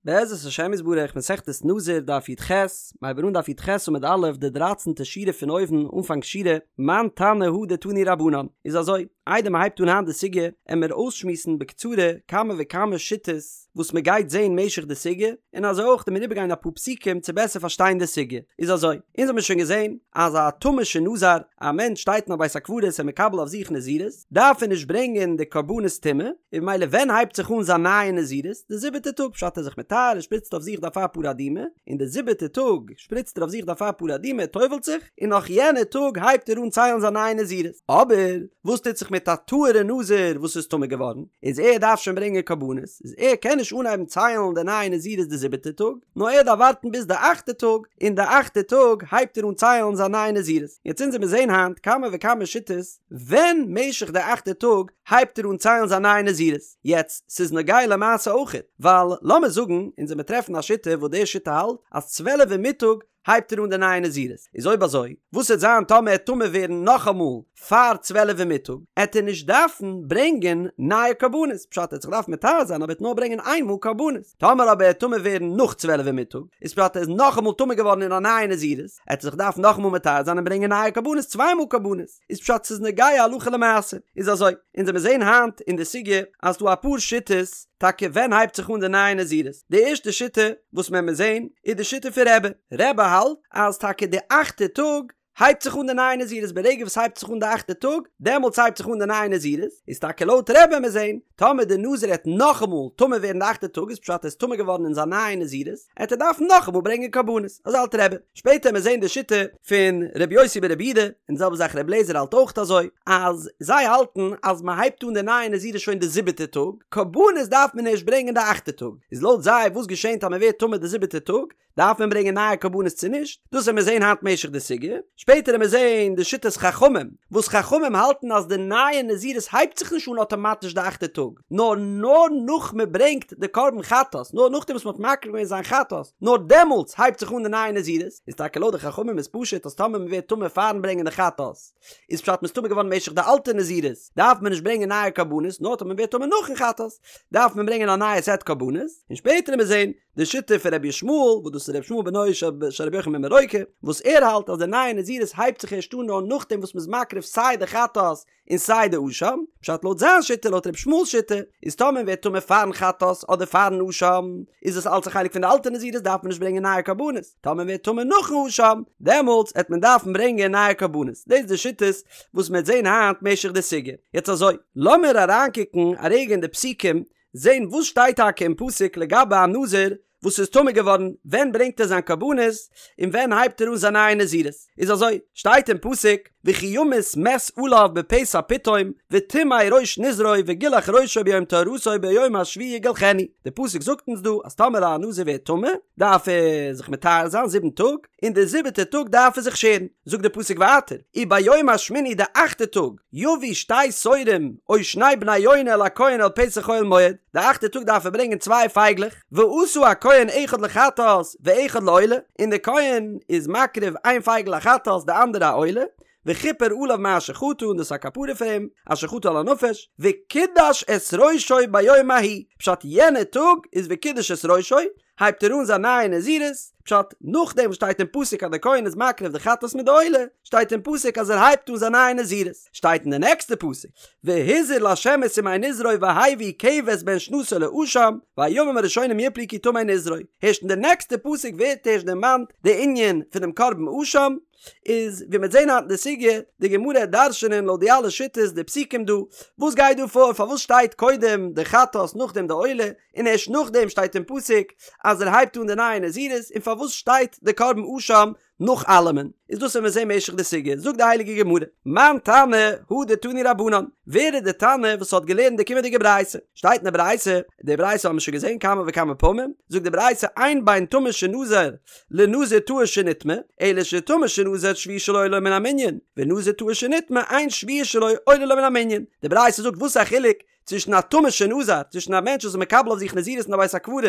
בעזרת השם יתברך מסכת נזיר דף י"ח, מ'הייבט אן דף י"ח עמוד א' די דרייצענטע שורה פון אויבן אנפאנג שורה, מאן תנא הא דתנו רבנן, איז אזוי, איידער מ'הייבט אן היינט די סוגיא, עמיר אויסשמועסן בקצרה כמה וכמה שיטות וואס מ'גייט זעהן משך די סוגיא, און אזוי אויך עמיר איבערגיין אפאר פסוקים צו בעסער פארשטיין די סוגיא, איז אזוי, אונז האמיר שוין געזעהן אז א טמא שנזר, א מענטש שטייט אין א בית הקברות און מקבל אויף זיך נזירות, דארף ער נישט ברענגען די קרבנות טומאה, און ממילא ווען הייבט זיך אן זיין נייע נזירות? די זיבעטע טאג, פשט ער איז זיך מטהר, ער שפריצט אויף זיך די אפר פרה אדומה, און די זיבעטע טאג שפריצט ער אויף זיך די אפר פרה אדומה, ער טובל'ט זיך, און נאך יענע טאג הייבט ער אן ציילן זיין נייע נזירות. אבער וואס טוט זיך מיט א טהור'ע נזיר וואס איז טמא געווארן, איז ער דארף שוין ברענגען קרבנות, איז ער קען נישט אנהייבן ציילן די נייע נזירות די זיבעטע טאג, נאר ער דארף ווארטן ביז די אכטע טאג, און די אכטע טאג הייבט ער אן ציילן זיין נייע נזירות. יעצט אונז עמיר זעהן היינט כמה וכמה שיטות, ווען משך די אכטע טאג הייבט ער אן ציילן זיין נייע נזירות. יעצט, ס'איז נוגע למעשה אויכעט, ווייל לאמיר זאגן אונז עמיר טרעפן א שיטה וואס די שיטה האלט אז צוועלף אין מיטאג הייבט ער אן די נייע נזירות, איז אויב אזוי וואס עט זיין טאמער ער עט טמא ווערן נאכאמאל פאר צוועלף אין מיטאג, עט ער נישט דארפן ברענגען נייע קרבנות, פשט ער עט זיך דארפן מטהר זיין אבער ער עט נאר ברענגען איין מאל קרבנות, טאמער אבער ער עט טמא ווערן נאך צוועלף אין מיטאג, איז פשט ער איז נאכאמאל טמא געווארן אין א נייע נזירות, עט ער זיך דארפן נאכאמאל מטהר זיין און ברענגען נייע קרבנות צוויי מאל קרבנות, איז פשט ס'איז נוגע הלכה למעשה, איז אזוי, אונז עמיר זעהן היינט אין די סוגיא אז ס'דא אפאר שיטות טאקע ווען הייבט זיך אן די נייע נזירות, די ערשטע שיטה וואס מען עמיר זעהן איז די שיטה פון רבי, רבי האלט אז טאקע די אכטע טאג הייבט זיך אן די נייע נזירות ברגע וואס הייבט זיך אן די אכטע טאג דעמאלטס הייבט זיך אן די נייע נזירות, איז טאקע לויט רבי עמיר זעהן טאמער די נזיר עט נאכאמאל טמא ווערן די אכטע טאג איז פשט ער איז טמא געווארן אין זיין נייע נזירות, עט ער דארפן נאכאמאל ברענגען קרבנות, אזוי האלט רבי. שפעטער עמיר זעהן די שיטה פון רבי יוסי ברבי יהודה, און די זעלבע זאך רבי אליעזר האלט אויך אזוי, אז זיי האלטן אז מען הייבט אן די נייע נזירות שוין די זיבעטע טאג, קרבנות דארף מען ערשט ברענגען די אכטע טאג, איז לויט זיי וואס געשענט אז מען ווערט טמא די זיבעטע טאג, דארף מען ברענגען נייע קרבנות צו נישט? דאס עמיר זעהן היינט משך די סוגיא, שפעטער עמיר זעהן די שיטת חכמים, וואס חכמים האלטן אז די נייע נזירות הייבט זיך נישט אן אטאמאטיש די אכטע טאג, נאר נאר נאך מען ברענגט די קרבן חטאת, נאר נאכדעם וואס מען האט מקריב געווען זיין חטאת, נאר דעמאלטס הייבט זיך אן די נייע נזירות, איז טאקע לויט די חכמים איז פשוט אז טאמער מען ווערט טמא פארן ברענגען די חטאת, איז פשט מ'איז טמא געווארן משך די אלטע נזירות, דארף מען נישט ברענגען נייע קרבנות, נאר טאמער מען ווערט טמא נאכן חטאת, דארף מען ברענגען א נייע סעט קרבנות, און שפעטער עמיר זען די שיטה פון רבי ישמעאל, וואס דאס איז רבי ישמעאל בנו של רבי יוחנן בן ברוקה, וואס ער האלט אז די נייע נזירות הייבט זיך ערשט אן נאר נאכדעם וואס מ'איז מקריב סיי די חטאת און סיי די אשם, פשט לויט זיין שיטה, לויט רבי ישמעאל'ס שיטה, איז טאמער מ'ווערט טמא פארן חטאת אדער פארן אשם, איז עס אלץ א חלק פון די אלטע נזירות דארף מען נישט ברענגען נייע קרבנות, טאמער מ'ווערט טמא נאכן אשם, דעמאלטס עט מען דארפן ברענגען נייע קרבנות, דאס איז די שיטות וואס מ'עט זען היינט משך די סוגיא. יעצט אזוי, לאמיר אריינקוקן א רגע אין די פסוקים, זען וואס שטייט טאקע אין פסוק לגבי א נזיר וואס איז טמא געווארן, ווען ברענגט ער זיין קרבנות, און ווען הייבט ער אן זיין נייע נזירות, איז אזוי, שטייט אין פסוק, וכי ימות מת עליו בפתע פתאום, וטמא ראש נזרו וגילח ראשו ביום טהרתו ביום השביעי יגלחנו, די פסוק זאגט אונז דא אז טאמער א נזיר ווערט טמא, דארף ער זיך מטהר זיין זיבן טאג, און די זיבעטע טאג דארף ער זיך שערן, זאגט די פסוק ווייטער, וביום השמיני די אכטע טאג, יביא שתי תורים או שני בני יונה אל הכהן אל פתח אוהל מועד, די אכטע טאג דארף ער ברענגען צוויי פייגלעך, ועשה הכהן אחד לחטאת ואחד לעולה, און די כהן איז מקריב איין פייגל א חטאת די אנדערע א עולה, וכפר עליו מאשר חטא און דאס איז א כפרה פאר אים, אשר חטא על הנפש, וקידש את ראשו ביום ההוא, פשט יענע טאג איז וקידש את ראשו, הייבט ער אן זיין נייע נזירות, פשט, נאכדעם וואס שטייט אין פסוק אז דער כהן איז מקריב די חטאת מיט די עולה, שטייט אין פסוק אז ער הייבט אן זיין נייע נזירות, שטייט אין די נעקסטע פסוק, והזיר לה' את ימי נזרו והביא כבש בן שנתו לאשם, והימים הראשונים יפלו כי טמא נזרו, הערשט אין די נעקסטע פסוק ווערט הערשט דערמאנט די ענין פונעם קרבן אשם, איז ווי מ'וועט זעהן היינט אין די סוגיא, די גמרא העט דרש'ענען לויט די אלע שיטות די פסוקים דא, וואס גייט דא פאר, פארוואס שטייט קודם די חטאת נאכדעם די עולה, און ערשט נאכדעם שטייט אין פסוק אז ער הייבט אן די נייע נזירות, און פארוואס שטייט די קרבן אשם נאך אלעמען, איז דאס וועט מען זעהן משך די סוגיא, זאגט די הייליגע גמרא, מאן תנא הא דתנו רבנן, ווער איז די תנא וואס האט געלערנט די קומענדיגע ברייתא? שטייט אין די ברייתא, די ברייתא האבן מיר שוין געזעהן כמה וכמה פעמים, זאגט די ברייתא אין בין טמא שנזר לנזיר טהור שנטמא, אלא שטמא שנזר שביעי שלו עולה לו מן המנין, ונזיר טהור שנטמא אין שביעי שלו עולה לו מן המנין. די ברייתא זאגט וואס איז א חילוק? צווישן א טמא שנזר, צווישן א מענטש וואס איז מקבל אויף זיך נזירות אין א בית הקברות,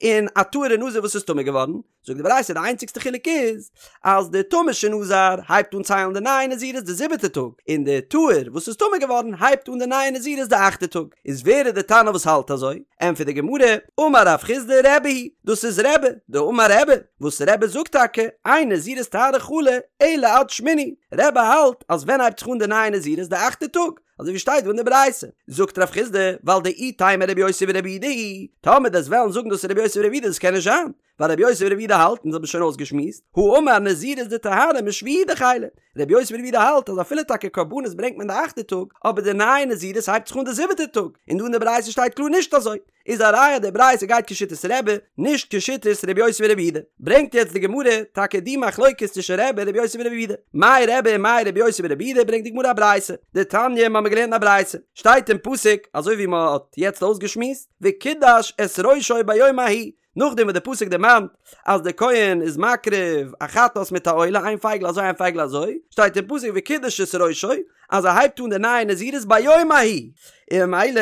און א טהור'ע נזיר וואס איז טמא געווארן, זאגט די ברייתא די איינציגסטע חילוק איז אז די טמא שנזר הייבט אן ציילן די נייע נזירות די זיבעטע טאג, און די טהור וואס איז טמא געווארן הייבט אן די נייע נזירות די אכטע טאג. איז ווער איז די תנא וואס האלט אזוי? ענטפערט די גמרא, אמר רב חסדא רבי היא, דאס איז רבי, דאמר רבי, וואס רבי זאגט טאקע, אין נזירות טהרה חלה אלא עד שמיני, רבי האלט אז ווען הייבט זיך אן די נייע נזירות די אכטע טאג, אזוי ווי שטייט דא אין די ברייתא, זאגט רב חסדא, ווייל דאי תימא רבי יוסי ברבי יהודה היא, טאמער דו'סט וועלן זאגן דאס איז רבי יוסי ברבי יהודה דאס קען נישט זיין, ווייל רבי יוסי ברבי יהודה האלט, און דאס האט מען שוין אויסגעשמועסט, האמר נזירות דטהרה משביעי דחיילא, רבי יוסי ברבי יהודה האלט אז אפילו טאקע קרבנות ברענגט מען די אכטע טאג, אבער די נייע נזירות הייבט זיך אן די זיבעטע טאג, און דא אין די ברייתא שטייט קלאר נישט אזוי, איז א ראיה די ברייתא גייט כשיטת רבי, נישט כשיטת רבי יוסי ברבי יהודה. ברענגט יעצט די גמרא טאקע די מחלוקת צווישן רבי און רבי יוסי ברבי יהודה. מאי רבי און מאי רבי יוסי ברבי יהודה ברענגט די גמרא א ברייתא, דתניא מ'האמיר געלערנט א ברייתא, שטייט אין פסוק אזוי ווי מ'האט יעצט אויסגעשמועסט, וקידש את ראשו ביום ההוא, נאכדעם וואס די פסוק דערמאנט אז דער כהן איז מקריב א חטאת מיט א עולה איין פייגל אזוי איין פייגל אזוי, שטייט אין פסוק וקידש את ראשו אז ער הייבט אן די נייע נזירות ביום ההוא, און ממילא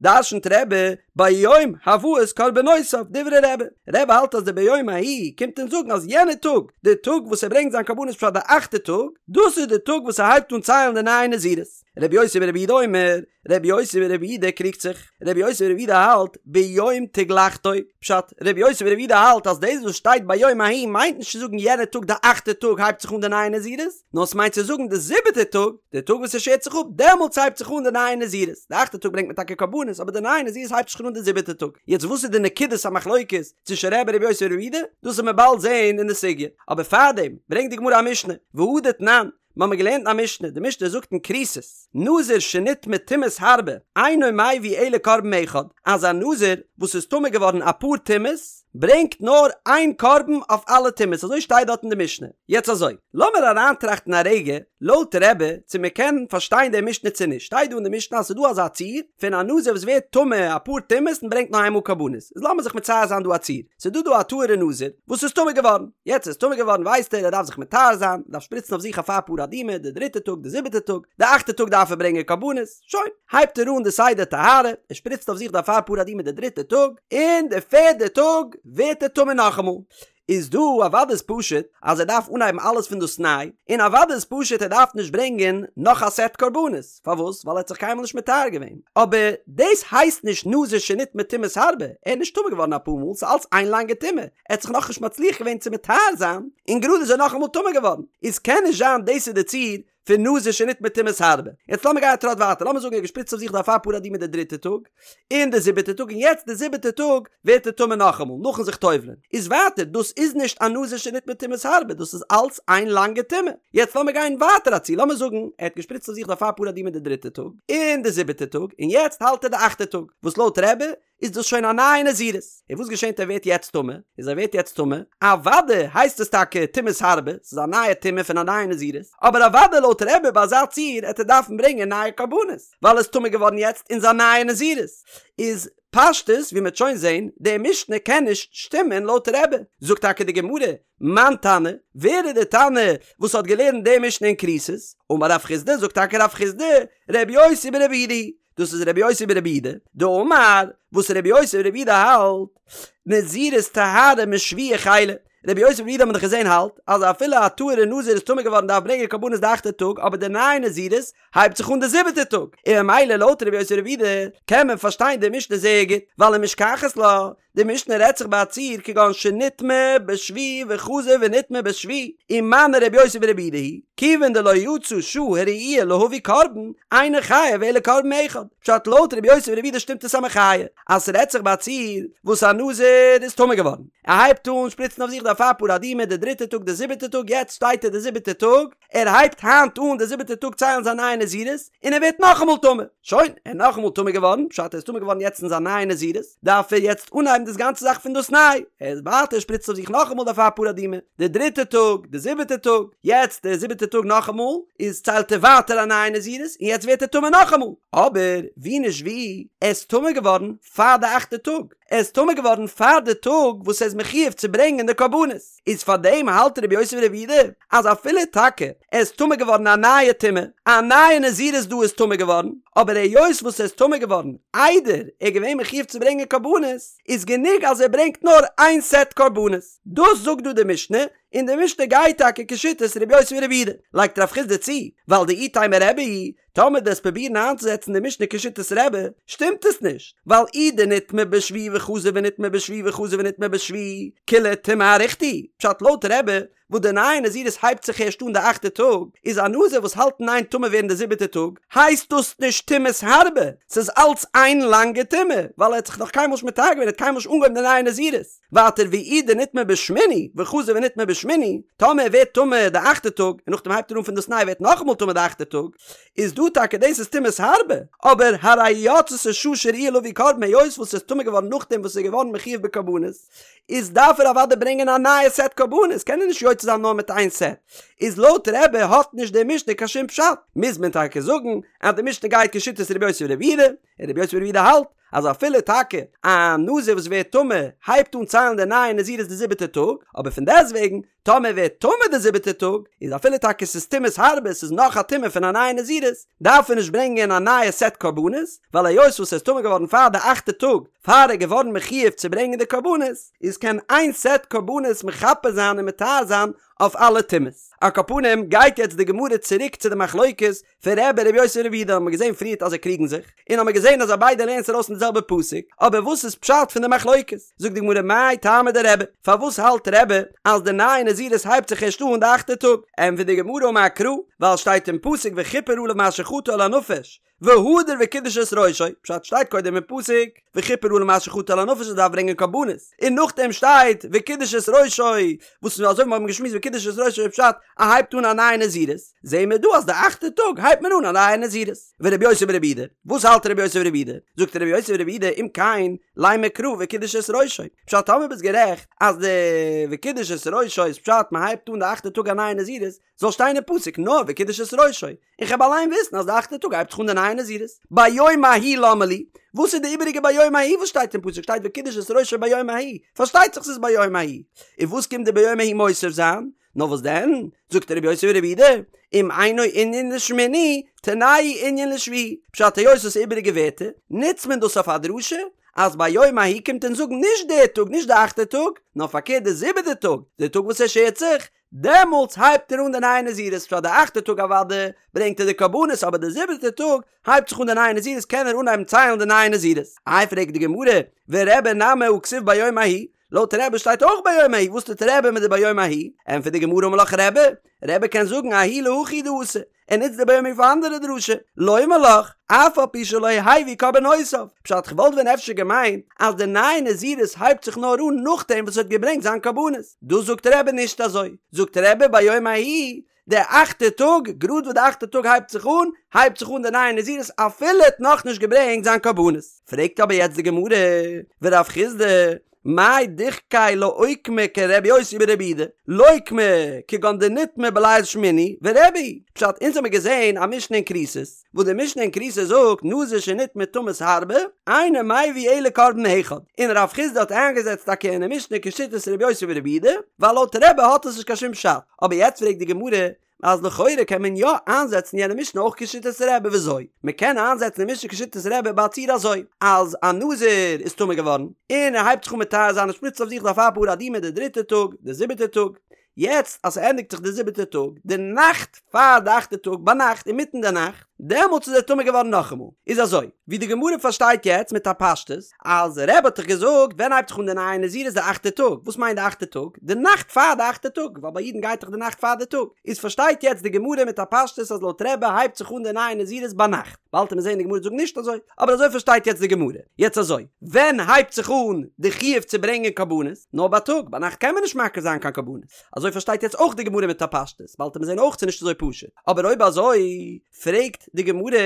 דרשנ'ט רבי ביום הבאת קרבנותיו דברי רבי, רבי האלט אז די ביום ההוא קומט אונז זאגן אז יענע טאג, די טאג וואס ער ברענגט זיין קרבנות פשט די אכטע טאג, דאס איז די טאג וואס ער הייבט אן ציילן די נייע נזירות. רבי יוסי ברבי יהודה אומר, רבי יוסי ברבי יהודה קריגט זיך, רבי יוסי ברבי יהודה האלט ביום תגלחתו, פשט, רבי יוסי ברבי יהודה האלט אז דאס וואס שטייט ביום ההוא מיינט נישט צו זאגן יענע טאג די אכטע טאג הייבט זיך אן די נייע נזירות, נאר ס'מיינט צו זאגן די זיבעטע טאג, די טאג וואס ער שערט זיך אפ, דעמאלטס הייבט זיך אן די נייע נזירות, די אכטע טאג ברענגט מען טאקע קרבנות אבער די נייע נזירות הייבט זיך אן די זיבעטע טאג, יעצט וואס איז די נקודת המחלוקת צווישן רבי און רבי יוסי ברבי יהודה, דאס וועט מען באלד זעהן אין די סוגיא, אבער פארדעם ברענגט די גמרא א משנה, והא דתנן, מ'האמיר געלערנט א משנה, די משנה זאגט אין כריתות, נזיר שנטמא טומאות הרבה, אינו מביא אלא קרבן אחד, אז א נזיר וואס איז טמא געווארן אפאר טומאות, ברענגט נאר איין קרבן אויף אלע טומאות, אזוי שטייט דארט אין די משנה. יעצט אזוי, לאמיר אריינטראכטן א רגע, לויט רבי, צו מ'קען פארשטיין די משנה צו נישט, שטייט דא אין די משנה אז ס'איז דא אזא ציור, פון א נזיר וואס ווערט טמא אפאר טומאות און ברענגט נאר איינמאל קרבנות, איז לאמיר זיך מצייר זיין דא א ציור, ס'איז דא דא א טהור'ע נזיר וואס איז טמא געווארן, יעצט ער איז טמא געווארן ווייסט ער ער דארף זיך מטהר זיין, דארף שפריצן אויף זיך אפר פרה אדומה די דריטע טאג די זיבעטע טאג, די אכטע טאג דארף ער ברענגען קרבנות, שוין, הייבט ער אן די סדר טהרה, ער שפריצט אויף זיך די אפר פרה אדומה די דריטע טאג, און די פערדע טאג ווערט ער טמא נאכאמאל, איז דא אוודאי איז פשוט אז ער דארף אנהייבן אלעס פון דאס ניי, און אוודאי איז פשוט ער דארף נישט ברענגען נאך א סעט קרבנות, פארוואס? ווייל ער האט זיך קיינמאל נישט מטהר געווען. אבער דאס הייסט נישט נזיר שנטמא טומאות הרבה, ער איז נישט טמא געווארן אפאר מאל, ס'איז אלץ איין לאנגע טומאה, ער האט זיך נאכנישט מצליח געווען צו מטהר זיין, און גראד איז ער נאכאמאל טמא געווארן, איז קען נישט זיין דאס איז די ציור פון נזיר שנטמא טומאות הרבה. יעצט לאמיר גיין א טראט ווייטער, לאמיר זאגן ער האט געשפריצט אויף זיך די אפר פרה אדומה די דריטע טאג, און די זיבעטע טאג, און יעצט די זיבעטע טאג ווערט ער טמא נאכאמאל, נאכן זיך טובל'ען. איז ווייטער, דאס איז נישט א נזיר שנטמא טומאות הרבה, דאס איז אלץ איין לאנגע טומאה. יעצט לאמיר גיין ווייטער א ציור, לאמיר זאגן ער האט געשפריצט אויף זיך די אפר פרה אדומה די דריטע טאג, און די זיבעטע טאג, און יעצט האלט ער די אכטע טאג, וואס לויט רבי איז דאס שוין א נייע נזירות. און וואס געשענט ער ווערט יעצט טמא? איז ער ווערט יעצט טמא, אוודאי הייסט עס טאקע טומאות הרבה, ס'איז א נייע טומאה פון א נייע נזירות, אבער אוודאי לויט רבי ביי אזא ציור העט ער דארפן ברענגען נייע קרבנות, ווייל ער איז טמא געווארן יעצט אין זיין נייע נזירות. איז פשטות ווי מ'עט שוין זעהן, די משנה קען נישט שטימען לויט רבי. זאגט טאקע די גמרא, מאן תנא, ווער איז די תנא וואס האט געלערנט די משנה אין כריתות? אמר רב חסדא, זאגט טאקע רב חסדא, רבי יוסי ברבי יהודה היא, דאס איז רבי יוסי ברבי יהודה, דאמר, וואס רבי יוסי ברבי יהודה האלט, נזירות טהרה משביעי חיילא, רבי יוסי ברבי יהודה האט מען דאך געזען האלט, אז אפילו א טהור'ע נזיר איז טמא געווארן דארף ברענגען קרבנות די אכטע טאג, אבער די נייע נזירות הייבט זיך אן די זיבעטע טאג, און ממילא לויט רבי יוסי ברבי יהודה קען מען פארשטיין די משנה זייער גוט, ווייל ומשכחת לה, די משנה רעדט זיך ביי א ציור כגון שנטמא בשביעי וחזר ונטמא בשביעי, ומני רבי יוסי ברבי יהודה היא, כיוון דלא יצא שעה הראויה להביא קרבן, אינו חייב אלא קרבן אחד. פשט לויט רבי יוסי ברבי יהודה שטימט עס א מחיה, אז ס'רעדט זיך ביי א ציור וואס א נזיר איז טמא געווארן, ער הייבט אן שפריצן אויף זיך די אפר פרה אדומה די דריטע טאג די זיבעטע טאג יעצט שטייט ער די זיבעטע טאג, ער הייבט היינט אן די זיבעטע טאג ציילן זיין נייע נזירות, און ער ווערט נאכאמאל טמא. שוין, ער איז נאכאמאל טמא געווארן, פשט ער איז טמא געווארן יעצט אין זיין נייע נזירות, דארף ער יעצט אנהייבן די. דאס גאנצע זאך פון דאס ניי, ער איז ווייטער שפריצט אויף זיך נאכאמאל די אפר פרה אדומה, די דריטע טאג, די זיבעטע טאג, יעצט די זיבעטע טאג נאכאמאל, איז ציילט ער ווייטער א נייע נזירות, און יעצט ווערט ער טמא נאכאמאל, אבער ווי נישט ווי, ער איז טמא געווארן פאר די אכטע טאג, ער איז טמא געווארן פאר די טאג וואס ער איז מחויב צו ברענגען די קרבנות, איז פאר דעם האלט רבי יוסי ברבי יהודה אז אפילו טאקע ער איז טמא געווארן א נייע טומאה, א נייע נזירות דא איז טמא געווארן, אבער היות וואס ער איז טמא געווארן איידער ער איז געווען מחויב צו ברענגען קרבנות, איז גענוג אז ער ברענגט נאר איין סעט קרבנות. דאס זאגט דא די משנה, און די משנה גייט טאקע כשיטת רבי יוסי ברבי יהודה. לייגט רב חסדא צו, ווייל דאי תימא רבי היא, טאמער דו וועסט פרובירן איינצוזעצן די משנה כשיטת רבי, שטימט עס נישט, ווייל אי דנטמא בשביעי וחזר ונטמא בשביעי וחזר ונטמא בשביעי, כולה טומאה אריכתא היא, פשט לויט רבי, וואס די נייע נזירות הייבט זיך ערשט אן די אכטע טאג, איז א נזיר וואס האלט אין איין טמא ווערן די זיבעטע טאג, הייסט דאס נישט טומאת הרבה, ס'איז אלץ איין לאנגע טומאה, ווייל ער האט זיך נאך קיינמאל נישט מטהר געווען, ער האט קיינמאל נישט אנגעהויבן די נייע נזירות. ווייטער ואי דנטמא בשמיני וחזר ונטמא בשמיני, טאמער ער ווערט טמא די אכטע טאג און נאכדעם הייבט ער אן פון דאס ניי ווערט נאכאמאל טמא די אכטע טאג, איז דא טאקע דאס איז טומאת הרבה, אבער הרי יצתה שעה שראויה להביא קרבן היות וואס ער איז טמא געווארן נאכדעם וואס ער איז געווארן מחויב בקרבנות, איז דארף ער אוודאי ברענגען א נייע סעט קרבנות, קען ער נישט יוצא זיין נאר מיט איין סעט, איז לויט רבי האט נישט די משנה קיין שום פשט, מוז מען טאקע זאגן אז די משנה גייט כשיטת רבי יוסי ברבי יהודה, און רבי יוסי ברבי יהודה האלט אז אפילו טאקע א נזיר וואס ווערט טמא הייבט אן ציילן די נייע נזירות די זיבעטע טאג, אבער פון דעסטוועגן טאמער ווערט טמא די זיבעטע טאג, איז אפילו טאקע ס'איז טומאת הרבה ס'איז נאך א טומאה פון א נייע נזירות, דארף ער נישט ברענגען א נייע סעט קרבנות, ווייל היות וואס ער איז טמא געווארן פאר די אכטע טאג פאר ער איז געווארן מחויב צו ברענגען די קרבנות, איז קען איין סעט קרבנות מכפר זיין און מטהר זיין אויף אלע טומאות. על כל פנים גייט יעצט די גמרא צוריק צו די מחלוקת פון רבי און רבי יוסי ברבי יהודה האבן מיר געזען פריערט אז זיי קריגן זיך, און האבן מיר געזען אז זיי ביידע לערנען עס ארויס פון די זעלבע פסוק, אבער וואס איז פשט פון די מחלוקת? זאגט די גמרא מאי טעמא דרבי, פארוואס האלט רבי אז די נייע נזירות הייבט זיך ערשט אן די אכטע טאג? ענטפערט די גמרא אמר קרא, ווייל שטייט אין פסוק וכפר עליו מאשר חטא על הנפש, והדר וקידש את ראשו, פשט שטייט קודם אין פסוק וכפר עליו מאשר חטא על הנפש ער דארף ברענגען קרבנות, און נאכדעם שטייט וקידש את ראשו, וואס אזוי ווי מיר האבן געשמועסט וקידש את ראשו איז פשט ער הייבט אן א נייע נזירות, זעהן מיר דא אז די אכטע טאג הייבט מען אן א נייע נזירות. ורבי יוסי ברבי יהודה, וואס האלט רבי יוסי ברבי יהודה? זאגט רבי יוסי ברבי יהודה אם כן לימא קרא וקידש את ראשו, פשט טאמער ביסט גערעכט אז די וקידש את ראשו איז פשט מען הייבט אן די אכטע טאג א נייע נזירות, זאל שטיין אין פסוק נאר וקידש את ראשו, און כ'העב אליין וויסן אז די אכטע טאג הייבט זיך אן די נייע נזירות. ביום ההוא למה לי, וואס איז די איבעריגע ביום ההוא וואס שטייט אין פסוק שטייט וקידש את ראשו ביום ההוא, פארשטייט זיך ס'איז ביום ההוא, און וואס קומט די ביום ההוא מוסיף זיין? נאר וואס דען? זאגט רבי יוסי ברבי יהודה, אם אינו ענין לשמיני, תנהו ענין לשביעי, פשט היות עס איז איבעריגע ווערטער, נוצט מען דאס אויף א דרשה, אז ביום ההוא קומט אונז זאגן נישט די טאג נישט די אכטע טאג, נאר פארקערט די זיבעטע טאג, די טאג וואס ער שערט זיך, דעמאלטס הייבט ער אן די נייע נזירות, פשט די אכטע טאג אוודאי ברענגט ער די קרבנות אבער די זיבעטע טאג הייבט זיך אן די נייע נזירות קען ער אנהייבן ציילן די נייע נזירות. איי פרעגט די גמרא, ורבי נמי הא כתיב ביום ההוא, לויט רבי שטייט אויך ביום ההוא, וואס טוט רבי מיט די ביום ההוא? ענטפערט די גמרא אמר לך רבי, רבי קען זאגן ההוא להכי הוא דאתא, ער נוצט די ביום ההוא פאר אנדערע דרשה, לומר לך, אף על פי שלא הביא קרבנותיו, פשט כ'וואלט ווען אפשר געמיינט אז די נייע נזירות הייבט זיך נאר אן נאכדעם וואס ער האט געברענגט זיין קרבנות, דא זאגט רבי נישט אזוי, זאגט רבי ביום ההוא, די אכטע טאג, גראד וואס די אכטע טאג הייבט זיך אן, הייבט זיך אן די נייע נזירות אפילו ער האט נאכנישט געברענגט זיין קרבנות. פרעגט אבער יעצט די גמרא, ורב חסדא, מאי דוחקיה לאוקמא כרבי יוסי ברבי יהודה, לוקמה כגון דנטמא בליל שמיני ורבי היא, פשט אונז האמיר געזעהן א משנה אין כריתות, וואס די משנה אין כריתות זאגט נזיר שנטמא טומאת הרבה, אינו מביא אלא קרבן אחד, און רב חסדא האט איינגעזעצט טאקע אין די משנה כשיטת רבי יוסי ברבי יהודה, ווייל לויט רבי האט עס נישט קיין שום פשט, אבער יעצט פרעגט די גמרא, אז לכאורה קען מען יא איינזעצן יענע משנה אויך כשיטת רבי וויאזוי? מען קען איינזעצן די משנה כשיטת רבי ביי א ציור אזוי, אז א נזיר איז טמא געווארן, און ער הייבט זיך אן מטהר זיין און שפריצט אויף זיך די אפר פרה אדומה די דריטע טאג, די זיבעטע טאג, יעצט אז ס'ענדיגט זיך די זיבעטע טאג, די נאכט פאר די אכטע טאג ביינאכט אינמיטן די נאכט, דעמאלטס איז ער טמא געווארן נאכאמאל. איז אזוי, ווי די גמרא פארשטייט יעצט מיט א פשטות, אז רבי האט דאך געזאגט ווען הייבט זיך אן די נייע נזירות די אכטע טאג, וואס מיינט די אכטע טאג? די נאכט פאר די אכטע טאג, ווייל ביי אידן גייט דאך די נאכט פאר די טאג, איז פארשטייט יעצט די גמרא מיט א פשטות אז לויט רבי הייבט זיך אן די נייע נזירות ביינאכט, באלד וועט מען זען די גמרא זאגט נישט אזוי, אבער אזוי פארשטייט יעצט די גמרא. יעצט אזוי, ווען הייבט זיך אן די חיוב צו ברענגען קרבנות? נאר בייטאג, ביינאכט קען מען נישט מקריב זיין קיין קרבנות, אזוי פארשטייט יעצט אויך די גמרא מיט א פשטות, באלד וועט מען זען אויך ס'איז נישט אזוי פשוט, אבער אויב אזוי פרעגט די גמרא,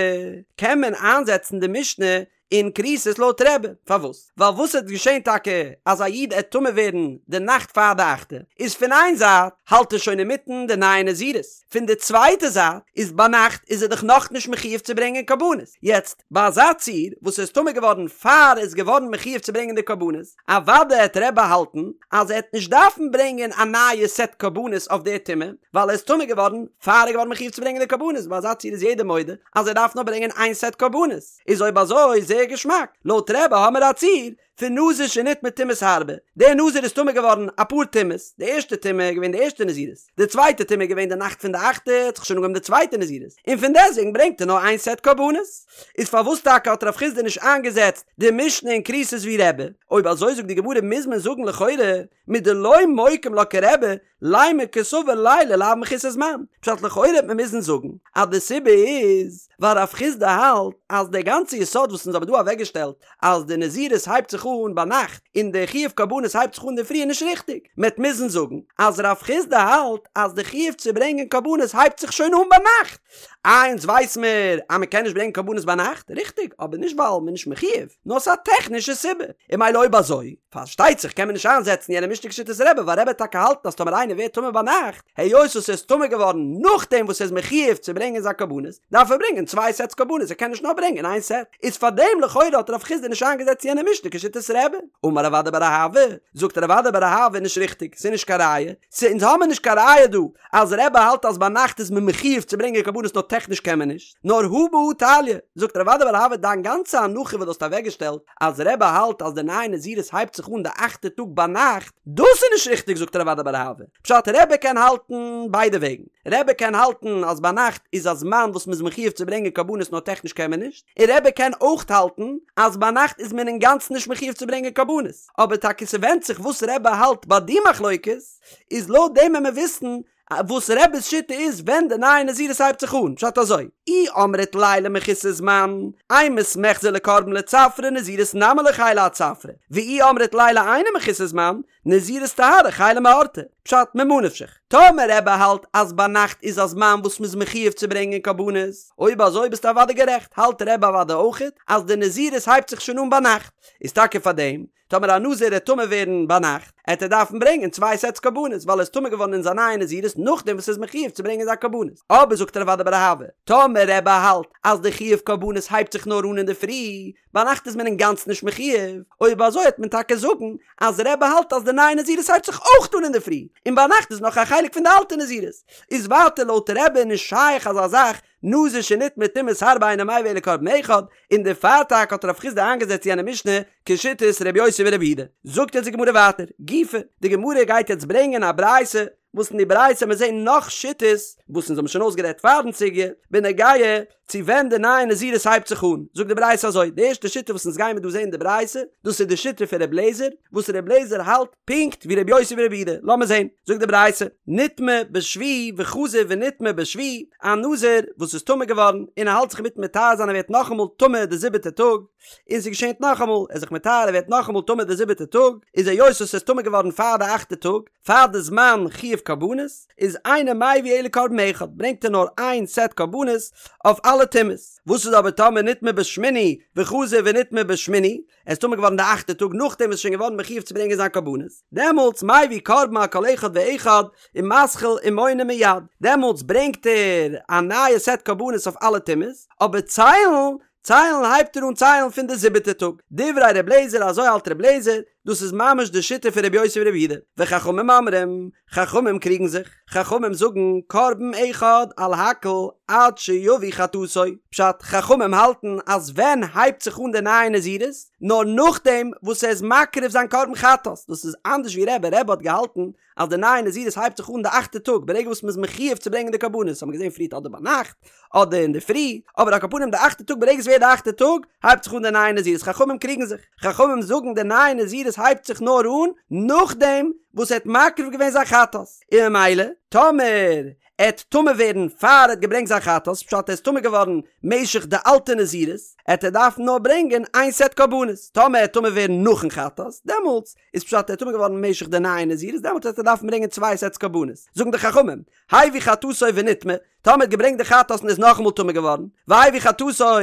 קען מען איינזעצן די משנה? אין כריתות לויט רבי, פארוואס? ווייל וואס עט געשען טאקע אז א איד עט טמא ווערן די נאכט פאר די אכטע, איז פון איין זייט האלט ער שוין אינמיטן די נייע נזירות, פון די צווייטע זייט איז ביינאכט איז ער דאך נאכנישט מחיוב צו ברענגען קרבנות, יעצט ביי אזא ציור וואס ער איז טמא געווארן פאר ער איז געווארן מחיוב צו ברענגען די קרבנות, אוודאי עט רבי האלטן אז ער עט נישט דארפן ברענגען א נייע סעט קרבנות אויף די טומאה, ווייל ער איז טמא געווארן פאר ער איז געווארן מחיוב צו ברענגען די קרבנות, ביי אזא ציור איז יעדער מודה אז ער דארף נאר ברענגען איין סעט קרבנות, איז אויב אזוי זייער געשמאק, לויט רבי האמער א ציור פון נזיר שנטמא טומאות הרבה, דער נזיר איז טמא געווארן אפאר טומאות, די ערשטע טומאה איז געווען די ערשטע נזירות, די צווייטע טומאה איז געווען די נאכט פון די אכטע, האט זיך שוין אנגעהויבן די צווייטע נזירות, און פון דעסטוועגן ברענגט ער נאר איין סעט קרבנות. איז פארוואס טאקע האט רב חסדא נישט איינגעזעצט די משנה אין כריתות ווי רבי? אויב אזוי זאגט די גמרא מוז מען זאגן לכאורה מדלא מוקים לה כרבי, לימא קסבר לילה לאו מחוסר זמן, פשט לכאורה וועט מען מוזן זאגן אז די סיבה איז ווייל רב חסדא האלט אז די גאנצע יסוד וואס אונז האבן דא אוועקגעשטעלט אז די נזירות הייבט זיך אן ביינאכט און די חיוב קרבנות הייבט זיך אן אינדערפרי איז נישט ריכטיג, מען וועט מוזן זאגן אז רב חסדא האלט אז די חיוב צו ברענגען קרבנות הייבט זיך שוין אן ביינאכט. איי אונז ווייס מיר אז מען קען נישט ברענגען קרבנות ביינאכט, ריכטיג, אבער נישט ווייל מען איז נישט מחיוב, נאר ס'איז א טעכנישע סיבה, און ממילא אויב אזוי, פארשטייט זיך קען מען נישט איינזעצן יענע משנה כשיטת רבי, ווייל רבי וועט טאקע האלטן אז טאמער איינער ווערט טמא ביינאכט, היות וואס ער איז טמא געווארן נאכדעם וואס ער איז מחיוב צו ברענגען זיין קרבנות, דארף ער ברענגען צוויי סעטס קרבנות, ער קען נישט נאר ברענגען איין סעט. איז פארדעם לכאורה האט רב חסדא נישט איינגעזעצט יענע משנה כשיטת רבי. אמר רב אדא בר אהבה, זאגט רב אדא בר אהבה נישט ריכטיג, ס'איז נישט קיין ראיה, ס' אונז האמיר נישט קיין ראיה דא אז רבי האלט אז ביינאכט איז מען מחיוב צו ברענגען קרבנות נאר טעכניש קען מען נישט, נאר הא בהא תליא, זאגט רב אדא בר אהבה דיין גאנצע הנחה וואס דו האסט אוועקגעשטעלט אז רבי האלט אז די נייע נזירות הייבט זיך אן די אכטע טאג ביינאכט, דאס איז נישט ריכטיג זאגט רב אדא בר אהבה, פשט רבי קען האלטן ביידע וועגן, רבי קען האלטן אז ביינאכט איז א זמן וואס מ'איז מחיוב צו ברענגען קרבנות נאר טעכניש קען מען נישט, און רבי קען אויך האלטן אז ביינאכט איז מען אינגאנצן נישט מחיוב צו ברענגען קרבנות, אבער טאקע ס'ווענדט זיך וואס רבי האלט ביי די מחלוקת, איז לויט דעם וועט מען וויסן וואס רבי'ס שיטה איז ווען די נייע נזירות הייבט זיך אן, פשט אזוי, אי אמרת לילה מחוסר זמן, אימת מיחזי לקרבן לצפרא נזירות נמי לא חיילא עד צפרא, ואי אמרת לילה אינו מחוסר זמן, נזירות טהרה חיילא מאורתא, פשט ממה נפשך, טאמער רבי האלט אז ביינאכט איז א זמן וואס מ'איז מחיוב צו ברענגען קרבנות, אויב אזוי ביסטו אוודאי גערעכט, האלט רבי אוודאי אויכעט אז די נזירות הייבט זיך שוין אן ביינאכט, איז טאקע פארדעם טאמער א נזיר עט טמא ווערן ביינאכט, עט ער דארפן ברענגען צוויי סעטס קרבנות, ווייל ער איז טמא געווארן אין זיין נייע נזירות נאכדעם וואס ער איז מחיוב צו ברענגען זיין קרבנות. אבער זאגט רב אדא בר אהבה, טאמער רבי האלט אז די חיוב קרבנות הייבט זיך נאר אן אינדערפרי, ביינאכט איז מען אינגאנצן נישט מחיוב, אויב אזוי העט מען טאקע זאגן אז רבי האלט אז די נייע נזירות הייבט זיך אויך אן אינדערפרי, און ביינאכט איז נאך א חלק פון די אלטע נזירות. איז ווייטער לויט רבי נישט שייך אזא זאך נזיר שנטמא טומאות הרבה אינו מביא אלא קרבן אחד, און דערפאר טאקע האט רב חסדא איינגעזעצט יענע משנה כשיטת ר' יוסי בר' יהודה. זאגט יעצט די גמרא ווייטער, גופא, די גמרא גייט יעצט ברענגען א ברייתא, וואס אין די ברייתא מיר זעהן נאך שיטות, וואס אונז האבן שוין אויסגערעדט פארן סוגיא, בנוגע צו ווען די נייע נזירות הייבט זיך אן, זאגט די ברייתא אזוי, די ערשטע שיטה וואס אונז גיימיר דא זעהן אין די ברייתא, דאס איז די שיטה פון ר' לעזער, וואס ר' לעזער האלט פונקט ווי ר' יוסי בר' יהודה, לאמיר זעהן, זאגט די ברייתא, נטמא בשביעי וחזר ונטמא בשביעי, א נזיר וואס איז טמא געווארן און ער האלט זיך אינמיטן מטהר זיין ער ווערט נאכאמאל טמא די זיבעטע טאג, און ס'געשענט נאכאמאל, ער איז זיך מטהר ער ווערט נאכאמאל טמא די זיבעטע טאג, איז היות וואס ער איז טמא געווארן פאר די אכטע טאג, פאר די זמן חיוב קרבנות, איז אינו מביא אלא קרבן אחד, ברענגט ער נאר איין סעט קרבנות אויף אלע טומאות. וואס איז אבער טאמער נטמא בשמיני וחזר ונטמא בשמיני, ער איז טמא געווארן די אכטע טאג נאכדעם וואס איז שוין געווארן מחיוב צו ברענגען זיין קרבנות, דעמאלטס מביא קרבן על כל אחד ואחד ומתחיל ומונה מיד, דעמאלטס ברענגט ער א נייע סעט קרבנות אויף אלע טומאות, אבער ציילן ציילן הייבט ער אן ציילן פון די זיבעטע טאג. דברי ר' לעזער אזוי האלט ר' לעזער, דאס איז ממש די שיטה פון ר' יוסי בר' יהודה. וחכמים אומרים, חכמים קריגן זיך, חכמים זאגן קרבן אחד על הכל עד שיביא חטאתו, פשט, חכמים האלטן אז ווען הייבט זיך אן די נייע נזירות? נאר נאכדעם וואס ער איז מקריב זיין קרבן חטאת, דאס איז אנדערש ווי רבי, רבי האט געהאלטן אז די נייע נזירות הייבט זיך אן די אכטע טאג ברגע וואס מ'איז מחיוב צו ברענגען די קרבנות, האט מען געזען פריערט אדער ביינאכט אדער אינדערפרי, אבער על כל פנים די אכטע טאג ברגע ס'ווערט די אכטע טאג הייבט זיך אן די נייע נזירות, חכמים קריגן זיך, חכמים זאגן די נייע נזירות הייבט זיך נאר אן נאכדעם וואס ער האט מקריב געווען זיין חטאת, און ממילא טאמער ער עט טמא ווערן פאר ער האט געברענגט זיין חטאת, פשט ער איז טמא געווארן משך די אלטע נזירות, עט ער דארפן נאר ברענגען איין סעט קרבנות, טאמער ער עט טמא ווערן נאכן חטאת, דעמאלטס איז פשט ער איז טמא געווארן משך די נייע נזירות, דעמאלטס וועט ער דארפן ברענגען צוויי סעטס קרבנות. זאגן די חכמים, הביא חטאתו ונטמא, טאמער האט געברענגט די חטאת און איז נאכאמאל טמא געווארן, והביא חטאתו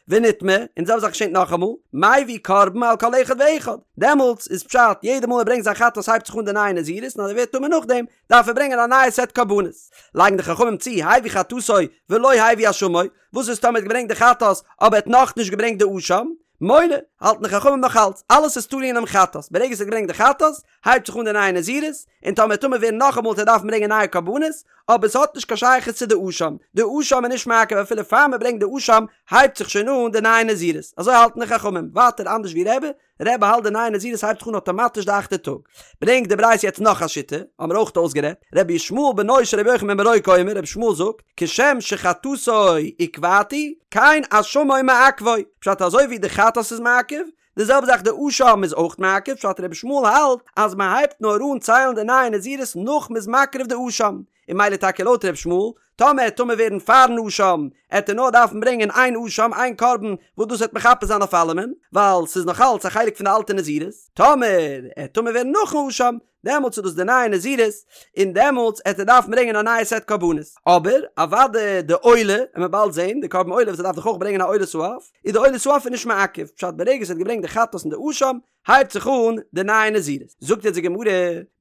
ונטמא, און די זעלבע זאך געשענט נאכאמאל, מביא קרבן על כל אחד ואחד, דעמאלטס איז פשט יעדע מאל ער ברענגט זיין חטאת הייבט זיך אן די נייע נזירות און אז ער ווערט טמא נאכדעם דארף ער ברענגען א נייע סעט קרבנות. לייגן די חכמים צו, הביא חטאתו ולא הביא אשמו, וואס איז טאמער ער האט געברענגט די חטאת אבער ער האט נאכנישט געברענגט די אשם? מונה, האלטן די חכמים נאך אלץ, אלעס איז תלוי אינעם חטאת, ברגע ס'האט געברענגט די חטאת, הייבט זיך אן די נייע נזירות, און טאמער טמא ווערן נאכאמאל וועט ער דארפן ברענגען נייע קרבנות, אבער ס'האט נישט קיין שייכות צו די אשם, די אשם איז נישט מעכב אפילו פאר מ'ברענגט די אשם הייבט זיך שוין אן די נייע נזירות, אזוי האלטן די חכמים, ווייטער אנדערש ווי רבי, רבי האלט די נייע נזירות הייבט זיך אן אטאמאטיש די אכטע טאג. ברענגט די ברייתא יעצט נאך א שיטה, האמיר אויך אויסגערעדט, רבי ישמעאל בנו של רבי יוחנן בן ברוקה אומר, רבי ישמעאל זאגט, כשם שחטאתו עיכבתו, כן אשמו מעכבו, פשט אזוי ווי די חטאת איז מעכב, די זעלבע זאך די אשם איז אויך מעכב, פשט רבי ישמעאל האלט אז מען הייבט נאר אן ציילן די נייע נזירות נאך מען איז מקריב די אשם, און ממילא טאקע לויט ר' ישמעאל, טאמער עט טמא ווערן פארן אשם, עט ער נאר דארפן ברענגען איין אשם, איין קרבן, וואס דאס וועט מכפר זיין אויף אלעמען, ווייל ס'איז נאך אלץ א חלק פון די אלטע נזירות, טאמער עט טמא ווערן נאכן אשם, דעמאלטס איז דאס די נייע נזירות, און דעמאלטס עט ער דארפן ברענגען א נייע סעט קרבנות. אבער, אוודאי די עולה, וועט מען באלד זען, די קרבן עולה וואס ער דארף דאך אויך ברענגען א עולת העוף, איז די עולת העוף איז נישט מעכב, פשט ברגע ס'האט געברענגט די חטאת און די אשם, הייבט זיך אן די נייע נזירות. זאגט יעצט די גמרא,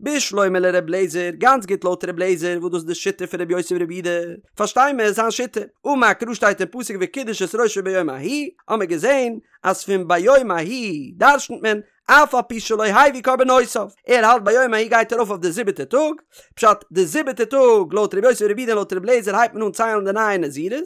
בשלמא לר' לעזער, גאנץ גוט לויט ר' לעזער, וואס דאס איז די שיטה פון ר' יוסי בר' יהודה, פארשטיי מיר זיין שיטה, אמר קרא שטייט אין פסוק וקידש את ראשו ביום ההוא, האמיר געזען אז פון ביום ההוא דרשנ'ט מען אף על פי שלא הביא קרבנותיו, ער האלט ביום ההוא גייט ארויף אויף די זיבעטע טאג, פשט די זיבעטע טאג לויט ר' יוסי בר' יהודה און לויט ר' לעזער הייבט מען אן ציילן די נייע נזירות,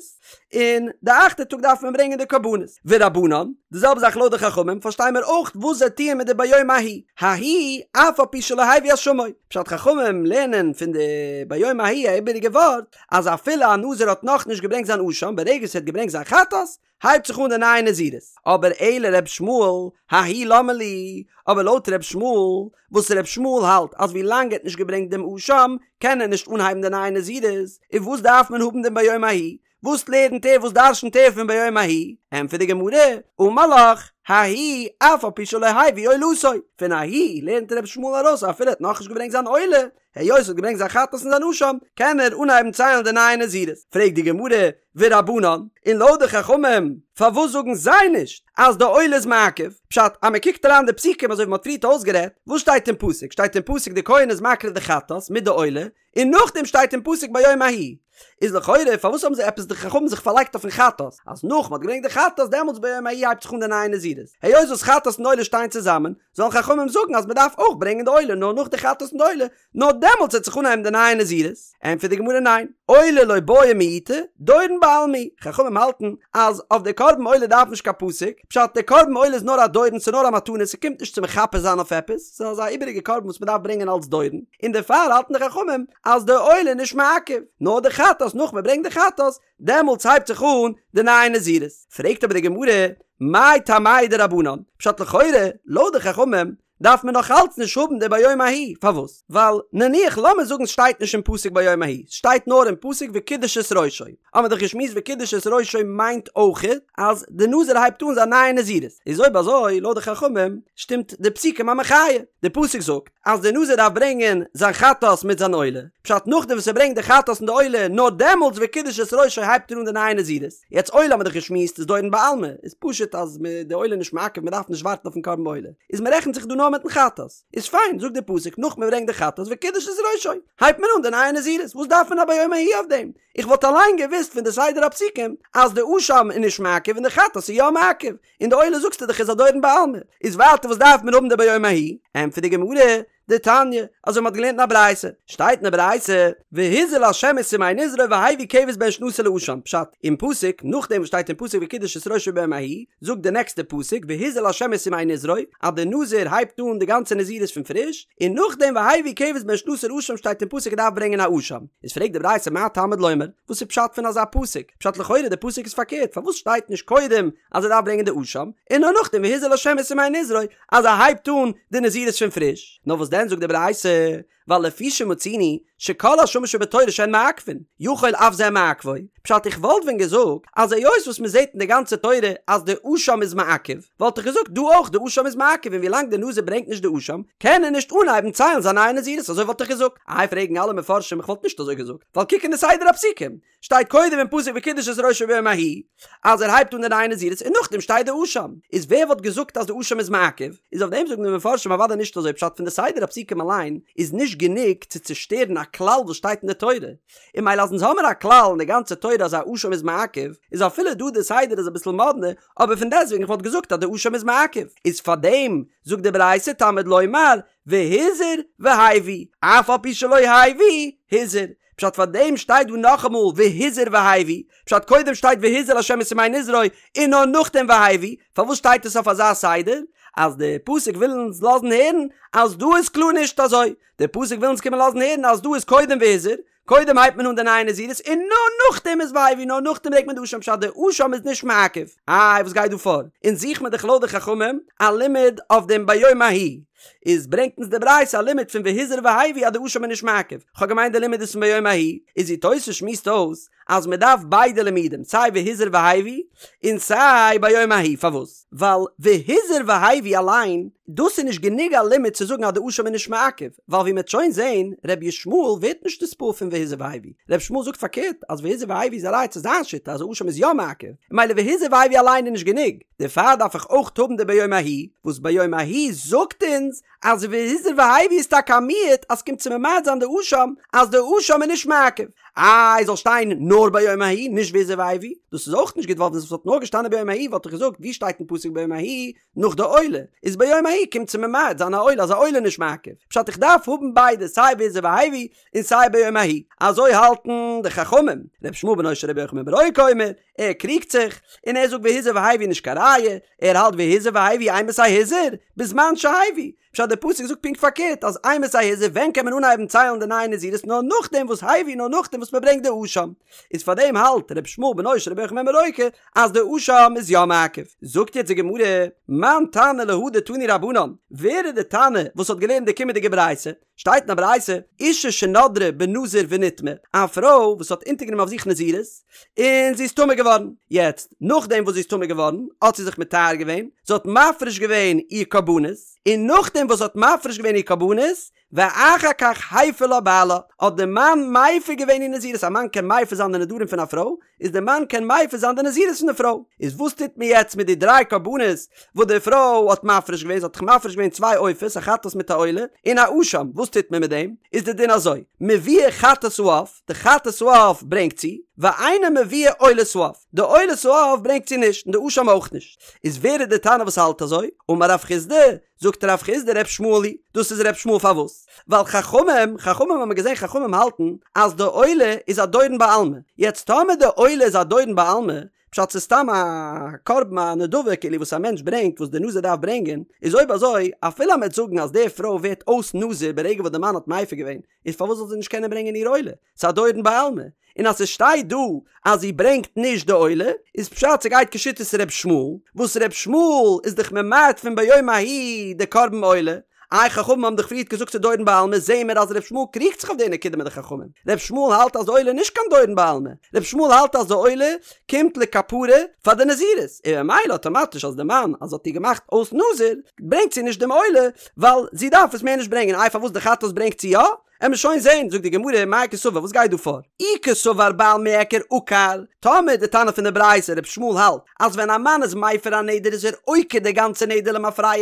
און די אכטע טאג דארף מען ברענגען די קרבנות. ורבנן, די זעלבע זאך לויט די חכמים, פארשטיי מיר אויך וואס זיי טוען מיט די ביום ההוא, ההוא אף על פי שלא הביא אשמו, פשט חכמים לערנען פון די ביום ההוא א איבעריגע ווארט, אז אפילו א נזיר האט נאכנישט געברענגט זיין אשם, ברגע ס'האט געברענגט זיין חטאת, הייבט זיך אן די נייע נזירות. אבער אלא ר' ישמעאל, ההוא למה לי, אבער לויט ר' ישמעאל, וואס ר' ישמעאל האלט אז ווי לאנג ער האט נישט געברענגט דעם אשם, קען ער נישט אנהייבן די נייע נזירות, איז וואס דארף מען האבן דעם ביום ההוא? וואס לערנט ער וואס דרשנ'ט ער פון ביום ההוא? ענטפערט די גמרא, אמר לך, ההוא אף על פי שלא הביא עולתו, פון ההוא לערנט ר' ישמעאל ארויס אפילו ער האט נאכנישט געברענגט זיין עולה, היות ער האט געברענגט זיין חטאת און זיין אשם, קען ער אנהייבן ציילן די נייע נזירות. פרעגט די גמרא, ורבנן, און לויט די חכמים, פארוואס זאגן זיי נישט אז די עולה איז מעכב? פשט, אז מען קוקט אריין די פסוקים אזוי ווי מען האט פריערט אויסגערעדט, וואס שטייט אין פסוק? שטייט אין פסוק די כהן איז מקריב די חטאת מיט די עולה, און נאכדעם שטייט אין פסוק ביום ההוא. איז לכאורה פארוואס האבן זיי עפעס די חכמים זיך פארלייגט אויפן חטאת, אז נאך מען האט געברענגט די חטאת דעמאלטס ביום ההוא הייבט זיך אן די נייע נזירות, היות וואס חטאת און עולה שטייען צוזאמען, זאלן חכמים זאגן אז מען דארף אויך ברענגען די עולה נאר נאך די חטאת און די עולה, נאר דעמאלטס וועט זיך אנהייבן די נייע נזירות? ענטפערט די גמרא ניין, עולה לא בעיא מיעוטא, דורון בעלמא הוא, חכמים האלטן אז אויף די קרבן עולה דארף נישט קיין פסוק, פשט די קרבן עולה איז נאר א דורון ס'איז נאר א מתנה ס'קומט נישט צו מכפר זיין אויף עפעס, ס'איז אזא איבעריגע קרבן וואס מ'דארף ברענגען אלס דורון, און דערפאר האלטן די חכמים אז די עולה איז נישט מעכב, נאר די חטאת נאך מ'ברענגט די חטאת דעמאלטס הייבט זיך אן די נייע נזירות. פרעגט אבער די גמרא, מאי טעמייהו דרבנן? פשט לכאורה, לויט די חכמים, דארף מען נאך אלץ נישט האבן די ביום ההוא, פארוואס? ווייל נניח לאמיר זאגן סשטייט נישט אין פסוק ביום ההוא, סשטייט נאר אין פסוק וקידש את ראשו, האמיר דאך געשמועסט וקידש את ראשו מיינט אויכעט אז די נזיר הייבט אן זיין נייע נזירות, איז אויב אזוי לויט די חכמים שטימט די פסוקים א מחיה, די פסוק זאגט אז די נזיר דארף ברענגען זיין חטאת מיט זיין עולה, פשט נאכדעם וואס ער ברענגט די חטאת און די עולה נאר דעמאלטס וקידש את ראשו הייבט ער אן די נייע נזירות. יעצט עולה האמיר דאך געשמועסט איז דורון בעלמא, איז פשוט אז מ' די עולה איז נישט מעכב מען דארף נישט ווארטן אויפן קרבן עולה, איז מען רעכנט זיך דא נאר מיטן חטאת, איז פיין זאגט די פסוק נאך מען ברענגט די חטאת וקידש את ראשו הייבט מען אן די נייע נזירות, וואס דארף מען א ביום ההוא אויף דעם? איך וואלט אליין געוואוסט פון די סדר הפסוקים אז די אשם איז נישט מעכב און די חטאת איז יא מעכב, און די עולה זאגסטו דאך איז א דורון בעלמא, איז ווייטער וואס דארף מען האבן די ביום ההוא? ענטפערט די גמרא, דתניא, אזוי מ'האט געלערנט אין א ברייתא, שטייט אין די ברייתא, והזה לה' את סמי נזרו והביא כבש בן שנתו לאשם, פשט, אין פסוק, נאכדעם וואס שטייט אין פסוק וקידש את ראשו ביום ההוא, זאגט די נעקסטע פסוק והזה לה' את סמי נזרו, אז די נזיר הייבט אן די גאנצע נזירות פון פריש, און נאכדעם והביא כבש בן שנתו לאשם שטייט אין פסוק ער דארף ברענגען א אשם, איז פרעגט די ברייתא מה תלמוד לומר, וואס איז פשט פון אזא פסוק, פשט לכאורה די פסוק איז פארקערט, פארוואס שטייט נישט קודם אז ער דארף ברענגען די אשם, און נאר נאכדעם והזה לה' את סמי נזרו, אז ער הייבט אן די נזירות פון פריש, נאר וואס דען? דען זאגט די ברייתא, ווייל לפי שמצינו שכל אשמות שבתורה שהן מעכבין, יכול אף זה מעכבו, פשט איך וואלט ווען געזאגט אז היות וואס מען זעט אין די גאנצע תורה אז די אשם איז מעכב, וואלט איך געזאגט דא אויך די אשם איז מעכב און ווילאנג די נזיר ברענגט נישט די אשם קען ער נישט אנהייבן ציילן זיין נייע נזירות אזוי וואלט איך געזאגט. איי פרעגן אלע מפרשים איך וואלט נישט אזוי געזאגט ווייל קוק אין די סדר הפסוקים שטייט קודם אין פסוק וקידש את ראשו ביום ההוא אז ער הייבט אן די נייע נזירות און נאכדעם שטייט די אשם, איז ווער וואלט געזאגט אז די אשם איז מעכב? איז אויף דעם זאגן די מפרשים אוודאי נישט אזוי פשט פון די סדר הפסוקים אליין איז נישט גענוג צו צושטערן א כלל וואס שטייט אין די תורה, און ממילא אז אונז האמיר א כלל אין די גאנצע תורה אז א אשם איז מעכב, איז אפילו דא די סדר איז אביסל מאדנע, אבער פון דעסטוועגן איך וואלט געזאגט אז די אשם איז מעכב, איז פארדעם זאגט די ברייתא תלמוד לומר והזיר והביא, אף על פי שלא הביא הזיר, פשט פאר דעם שטייט דא נאכאמאל והזיר והביא, פשט קודם שטייט והזיר לה' את ימי נזרו און נאר נאכדעם והביא, פארוואס שטייט עס אויף אזא סדר? אז די פסוק וויל אונז לאזן הערן אז דא איז קלאר נישט אזוי, די פסוק וויל אונז קומען לאזן הערן אז דא איז קודם והזיר, קודם הייבט מען אן די נייע נזירות און נאר נאכדעם איז והביא, נאר נאכדעם ברענגט מען די אשם פשט די אשם איז נישט מעכב. איי וואס גייט דא פאר? אונז זוכט מען דאך לויט די חכמים א לימוד אויף דעם ביום ההוא, איז ברענגט אונז די ברייתא א לימוד פון והזיר והביא אז די אשם איז נישט מעכב, כ'האב געמיינט די לימוד איז פון ביום ההוא, איז ווי תוס' שמועסט אויס אז מען דארף ביידע לימודים סיי והזיר והביא און סיי ביום ההוא, פארוואס? ווייל והזיר והביא אליין דאס איז נישט גענוג א לימוד צו זאגן אז די אשם איז נישט מעכב, ווייל ווי מ'עט שוין זעהן ר' ישמעאל ווערט נישט נתפעל פון והזיר והביא, ר' ישמעאל זאגט פארקערט אז והזיר והביא איז א ראיה צו זיין שיטה אז אשם איז יא מעכב, ממילא והזיר והביא אליין איז נישט גענוג. דערפאר דארף איך אויך האבן די ביום ההוא, וואס ביום ההוא זאגט אונז אז והזיר והביא איז טאקע א מיעוט אז ס'קומט צו ממעט זיין די אשם אז די אשם איז נישט מעכב. איי זאל שטיין נאר ביום ההוא נישט והזיר והביא? דאס איז אויך נישט גוט ווייל ווען ס'וואלט נאר געשטאנען ביום ההוא וואלט איך געזאגט ווי שטייט אין פסוק ביום ההוא נאך די עולה איז ביום ההוא קומט צו ממעט זיין א עולה אז א עולה איז נישט מעכב פשט איך דארף האבן ביידע סיי והזיר והביא און סיי ביום ההוא אזוי האלטן די חכמים ר' ישמעאל בנו של רבי יוחנן בן ברוקה אומר ער קריגט זיך, און ער זאגט והזיר והביא נישט קיין ראיה, ער האלט והזיר והביא אימתי הזיר, בזמן שהביא, פשט דער פסוק זאגט פונקט פארקערט אז אימתי הזיר ווען קען מען אנהייבן ציילן די נייע נזירות נאר נאכדעם וואס הביא נאר נאכדעם וואס מען ברענגט די אשם, איז פארדעם האלט ר' ישמעאל בנו של רבי יוחנן בן ברוקה אז די אשם איז יא מעכב. זאגט יעצט די גמרא, מאן תנא להא דתנו רבנן, ווער איז די תנא וואס האט געלערנט די קומענדיגע ברייתא? שטייט אין א ברייתא, אישה שנדרה בנזיר ונטמאה, א פרוי וואס האט אונטערגענומען אויף זיך נזירות, און זי איז טמא געווארן, יעצט נאכדעם וואס זי איז טמא געווארן, האט זי זיך מטהר געווען, זי האט מפריש געווען איר קרבנות, און נאכדעם וואס זי האט מפריש געווען איר קרבנות, ואחר כך הפר לה בעלה, האט די מאן מפר געווען איר נזירות, א מאן קען מפר זיין די נדרים פון א פרוי, איז די מאן קען מפר זיין די נזירות פון די פרוי, איז וואס טוט מען יעצט מיט די דריי קרבנות וואס די פרוי האט מפריש געווען, זי האט דאך מפריש געווען צוויי עופות, א חטאת מיט א עולה, און א אשם, וואס טוט מען מיט דעם? איז די דין אזוי, מביאה חטאת העוף, די חטאת העוף ברענגט זי, ואינה מביאה עולת העוף, די עולת העוף ברענגט זי נישט, און די אשם אויך נישט, איז ווער איז די תנא וואס האלט אזוי? אמר רב חסדא, זאגט רב חסדא ר' ישמעאל היא, דאס איז ר' ישמעאל פארוואס? ווייל חכמים, חכמים האבן געזען חכמים האלטן אז די עולה איז א דורון בעלמא, יעצט טאמער די עולה איז א דורון בעלמא, פשט ס'איז סתם א קרבן א נדבה כאילו וואס א מענטש ברענגט וואס די נזיר דארף ברענגען, איז אויב אזוי אפילו אז מ'עט זאגן אז די פרוי ווערט אויס נזיר ברגע וואס די מאן האט מפר געווען, איז פארוואס זאל זי נישט קענען ברענגען איר עולה? ס'איז א דורון בעלמא. און אז ס'שטייט דא אז זי ברענגט נישט די עולה, איז פשט ס'גייט כשיטת ר' ישמעאל, וואס ר' ישמעאל איז דאך ממעט פון ביום ההוא די קרבן עולה, איי חכמים האבן דאך פריערט געזאגט ס'איז דורון בעלמא, זעהן מיר אז ר' ישמעאל קריגט זיך אויף די נקודה מיט די חכמים, ר' ישמעאל האלט אז די עולה איז נישט קיין דורון בעלמא, ר' ישמעאל האלט אז די עולה קומט לכפרה פאר די נזירות, און ממילא אטאמאטיש אז די מאן אז האט איר געמאכט אויס נזיר, ברענגט זי נישט דעם עולה, ווייל זי דארף עס מער נישט ברענגען, איי פארוואס די חטאת ברענגט זי יא? עמיר שוין זעהן, זאגט די גמרא, מאי קסבר, וואס גייט דא פאר? אי קסבר בעל מיעקר עקר, טאמער די תנא פון די ברייתא ר' ישמעאל האלט אז ווען א מאן איז מפר א נדר איז ער עוקר די גאנצע נדר למפרע,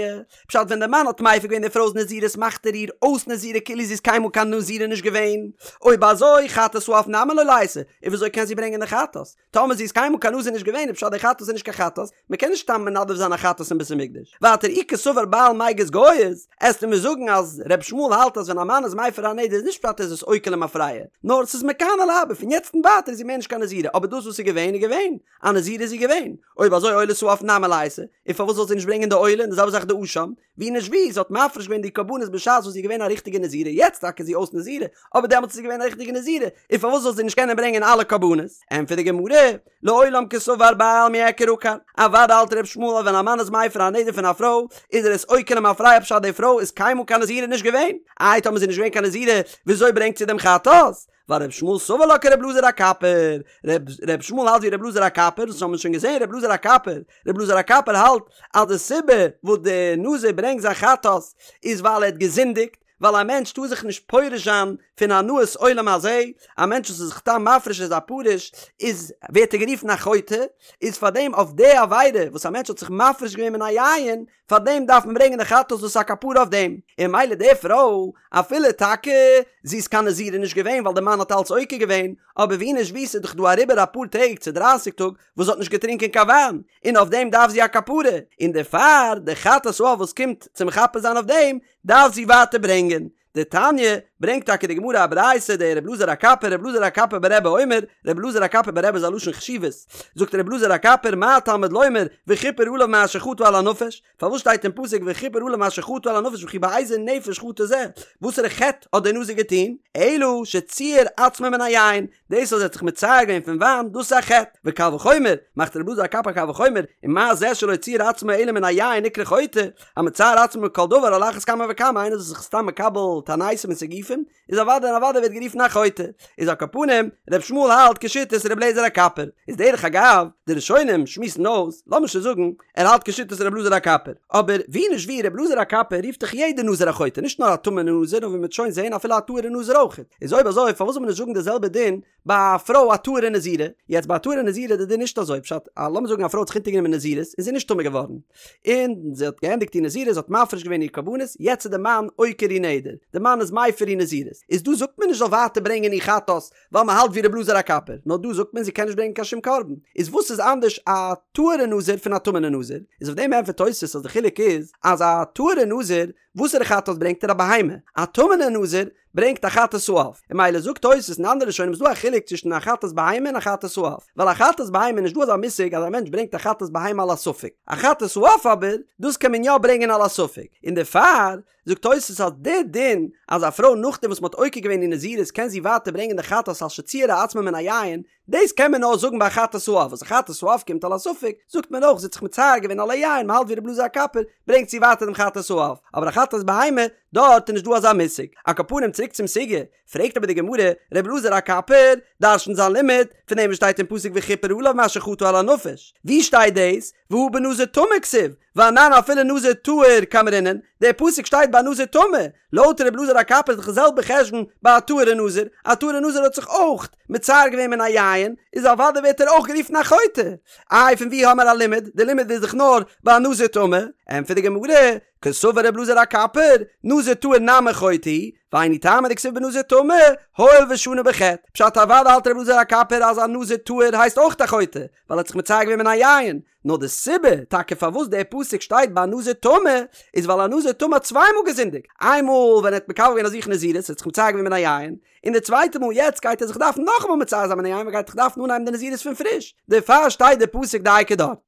פשט ווען די מאן האט מפר געווען די פרוי'ס נזירות מאכט ער איר אויס נזירה כאילו זי איז קיינמאל קיין נזירה נישט געווען, אויב אזוי חטאת העוף נמי לא ליתי, און וויאזוי קען זי ברענגען די חטאת? טאמער זי איז קיינמאל קיין נזיר נישט געווען איז פשט די חטאת איז נישט קיין חטאת, מען קען נישט סתם מנדב זיין א חטאת אין בית המקדש. ווייטער אי קסבר בעל מיגז גייז, עסטו מיר זאגן אז ר' ישמעאל האלט אז ווען א מאן איז מפר א נדר. נדר איז נישט פשט ער איז עס עוקר למפרע, נאר ס'איז מכאן ולהבא פון יעצט און ווייטער איז זי מער נישט קיין נזירה, אבער דאס וואס איז געווען איז געווען, א נזירה איז זי געווען, אויב אזוי עולת העוף נמי ליתי, און פארוואס זאל זי נישט ברענגען די עולה און די זעלבע זאך די אשם, ווי נישט ווי, זי האט מפריש געווען די קרבנות בשעת וואס זי איז געווען א ריכטיגע נזירה, יעצט טאקע איז זי אויס נזירה, אבער דעמאלטס איז זי געווען א ריכטיגע נזירה, און פארוואס זאל זי נישט קענען ברענגען אלע קרבנות? ענטפערט די גמרא, לעולם קסבר בעל מיעקר עקר, אוודאי האלט ר' ישמעאל אז ווען א מאן איז מפר א נדר פון א פרוי, איז ער עס עוקר למפרע פשט די פרוי איז קיינמאל קיין נזירה נישט געווען, איי טאמער זי איז נישט געווען קיין נזירה וויאזוי ברענגט זי דעם חטאת? ווייל ר' ישמעאל סבר לה כר' אלעזר הקפר, ר' ישמעאל האלט ווי ר' אלעזר הקפר, דאס האבן מיר שוין געזען ר' אלעזר הקפר, ר' אלעזר הקפר האלט אז די סיבה וואס די נזיר ברענגט זיין חטאת איז ווייל ער האט געזינדיגט, ווייל א מענטש טאר זיך נישט פורש זיין פון הנאת עולם הזה, א מענטש וואס איז זיך סתם מפריש איז א פרוש, איז ווערט ער גערופן א חוטא, איז פארדעם אויף די עבירה וואס א מענטש האט זיך מפריש געווען מן היין, פאר דעם דארף מען ברענגען די חטאת דאס איז א כפרה אויף דעם, און ממילא די פרוי, אפילו טאקע זי איז קיין נזירה נישט געווען ווייל די מאן האט אלץ עוקר געווען, אבער ווי נישט ווי ס'איז דאך דא אריבער אפאר טעג צו דרייסיג טאג וואס זי האט נישט געטרינקען קיין וויין, און אויף דעם דארף זי א כפרה, און דערפאר די חטאת העוף וואס קומט צו מכפר זיין אויף דעם, דארף זי ווייטער ברענגען. דתניא, ברענגט טאקע די גמרא א ברייתא דר' אלעזר הקפר, ר' אלעזר הקפר ברבי אומר, ר' אלעזר הקפר ברבי איז א לשון חשיבות, זאגט ר' אלעזר הקפר מה תלמוד לומר וכפר עליו מאשר חטא על הנפש, פארוואס שטייט אין פסוק וכפר עליו מאשר חטא על הנפש וכי באיזה נפש חטא זה, וואסערע חטא האט דער נזיר געטון, אלא שציער עצמו מן היין, דאס אז ער האט זיך מצער געווען פון וויין, דאס איז א חטא, וקל וחומר, מאכט ר' אלעזר הקפר א קל וחומר, ומה זה שלא ציער עצמו אלא מן היין נקרא חוטא, המצער עצמו מכל דבר על אחת כמה וכמה איינער וואס איז זיך סתם מקבל תעניתים און סיגופים, איז אוודאי און אוודאי ווערט גערופן א חוטא. איז על כל פנים, ר' ישמעאל האלט כשיטת ר' אלעזר הקפר. איז דרך אגב, די ראשונים שמועסן אויס, לאמיר שוין זאגן, ער האלט כשיטת ר' אלעזר הקפר. אבער ווי נישט ווי, ר' אלעזר הקפר רופט דאך יעדער נזיר א חוטא, נישט נאר א טמא'נע נזיר, נאר ווי מ'וועט שוין זעהן אפילו א טהור'ע נזיר אויכעט. איז אויב אזוי פארוואס זאל מען נישט זאגן די זעלבע דין ביי א פרוי א טהור'ע נזירה? יעצט ביי א טהור'ע נזירה איז די דין נישט אזוי, פשט, א לאמיר זאגן א פרוי האט זיך אונטערגענומען נזירות און זי איז נישט טמא געווארן, און זי האט געענדיגט איר נזירות, זי האט מפריש געווען איר קרבנות, יעצט איז די מאן עוקר איר נדר, די מאן איז מפר איר נזירות, איז דא זאגט מען נישט זאל ווייטער ברענגען איר חטאת, ווייל מען האלט ווי ר' אלעזר הקפר, נאר דא זאגט מען זי קען נישט ברענגען קיין שום קרבן, איז וואס איז אנדערש א טהור'ע נזיר פון א טמא'נע נזיר? איז אויף דעם ענטפערט תוס' אז די חילוק איז אז א טהור'ע נזיר וואסערע חטאת ברענגט ער א בהמה, א טמא'נע נזיר ברענגט א חטאת העוף, און ממילא זאגט תוס' און אנדערע ראשונים איז דא א חילוק צווישן א חטאת בהמה און א חטאת העוף, ווייל א חטאת בהמה איז נישט דא אזא מושג אז א מענטש ברענגט א חטאת בהמה על הספק, א חטאת העוף אבער דאס קען מען יא ברענגען על הספק, און דערפאר זאגט תוס' אז די דין אז א פרוי נאכדעם וואס מ'האט עוקר געווען איר נזירות קען זי ווייטער ברענגען די חטאת על שציערה עצמה מן היין, דאס קען מען נאר זאגן ביי חטאת העוף, וואס א חטאת העוף קומט על הספק, זאגט מען אויך זי האט זיך מצער געווען על היין, מ'האלט ווי ר' אלעזר הקפר, ברענגט זי ווייטער דעם חטאת העוף, אבער א חטאת בהמה, דארט איז נישט דא אזא מושג. על כל פנים צוריק צום סוגיא, פרעגט אבער די גמרא, ר' אלעזר הקפר דרש'נט זיין לימוד פון דעם וואס שטייט אין פסוק וכפר עליו מאשר חטא על הנפש, ווי שטייט דאס? והא בנזיר טמא כתיב, ואנן אפילו נזיר טהור קאמרינן, דער פסוק שטייט ביי נזיר טמא, לויט ר' אלעזר הקפר איז דאך די זעלבע חשבון ביי א טהור'ע נזיר, א טהור'ע נזיר האט זיך אויך מצער געווען מן היין, איז אוודאי ווערט ער אויך גערופן א חוטא. איי פון ווי האמער א לימוד? די לימוד איז דאך נאר ביי א נזיר טמא. ענטפערט די גמרא, קסבר ר' אלעזר הקפר, נזיר טהור נמי חוטא הוא, והיינו טעמא דכתיב בנזיר טמא, הואיל ושנה בחטא. פשט אוודאי האלט ר' אלעזר הקפר אז א נזיר טהור הייסט אויך א חוטא, ווייל ער האט זיך מצער געווען מן היין, נאר די סיבה טאקע פארוואס דער פסוק שטייט ביי א נזיר טמא, איז ווייל א נזיר טמא האט צוויי מאל געזינדיגט, איין מאל ווען ער האט מקבל געווען אויף זיך נזירות, ער האט זיך מצער געווען מן היין, און די צווייטע מאל יעצט גייט ער זיך דארפן נאכאמאל מצער זיין מן היין, ווייל ער גייט זיך דארפן אנהייבן די נזירות פון פריש, דערפאר שטייט דער פסוק דייקא דארט.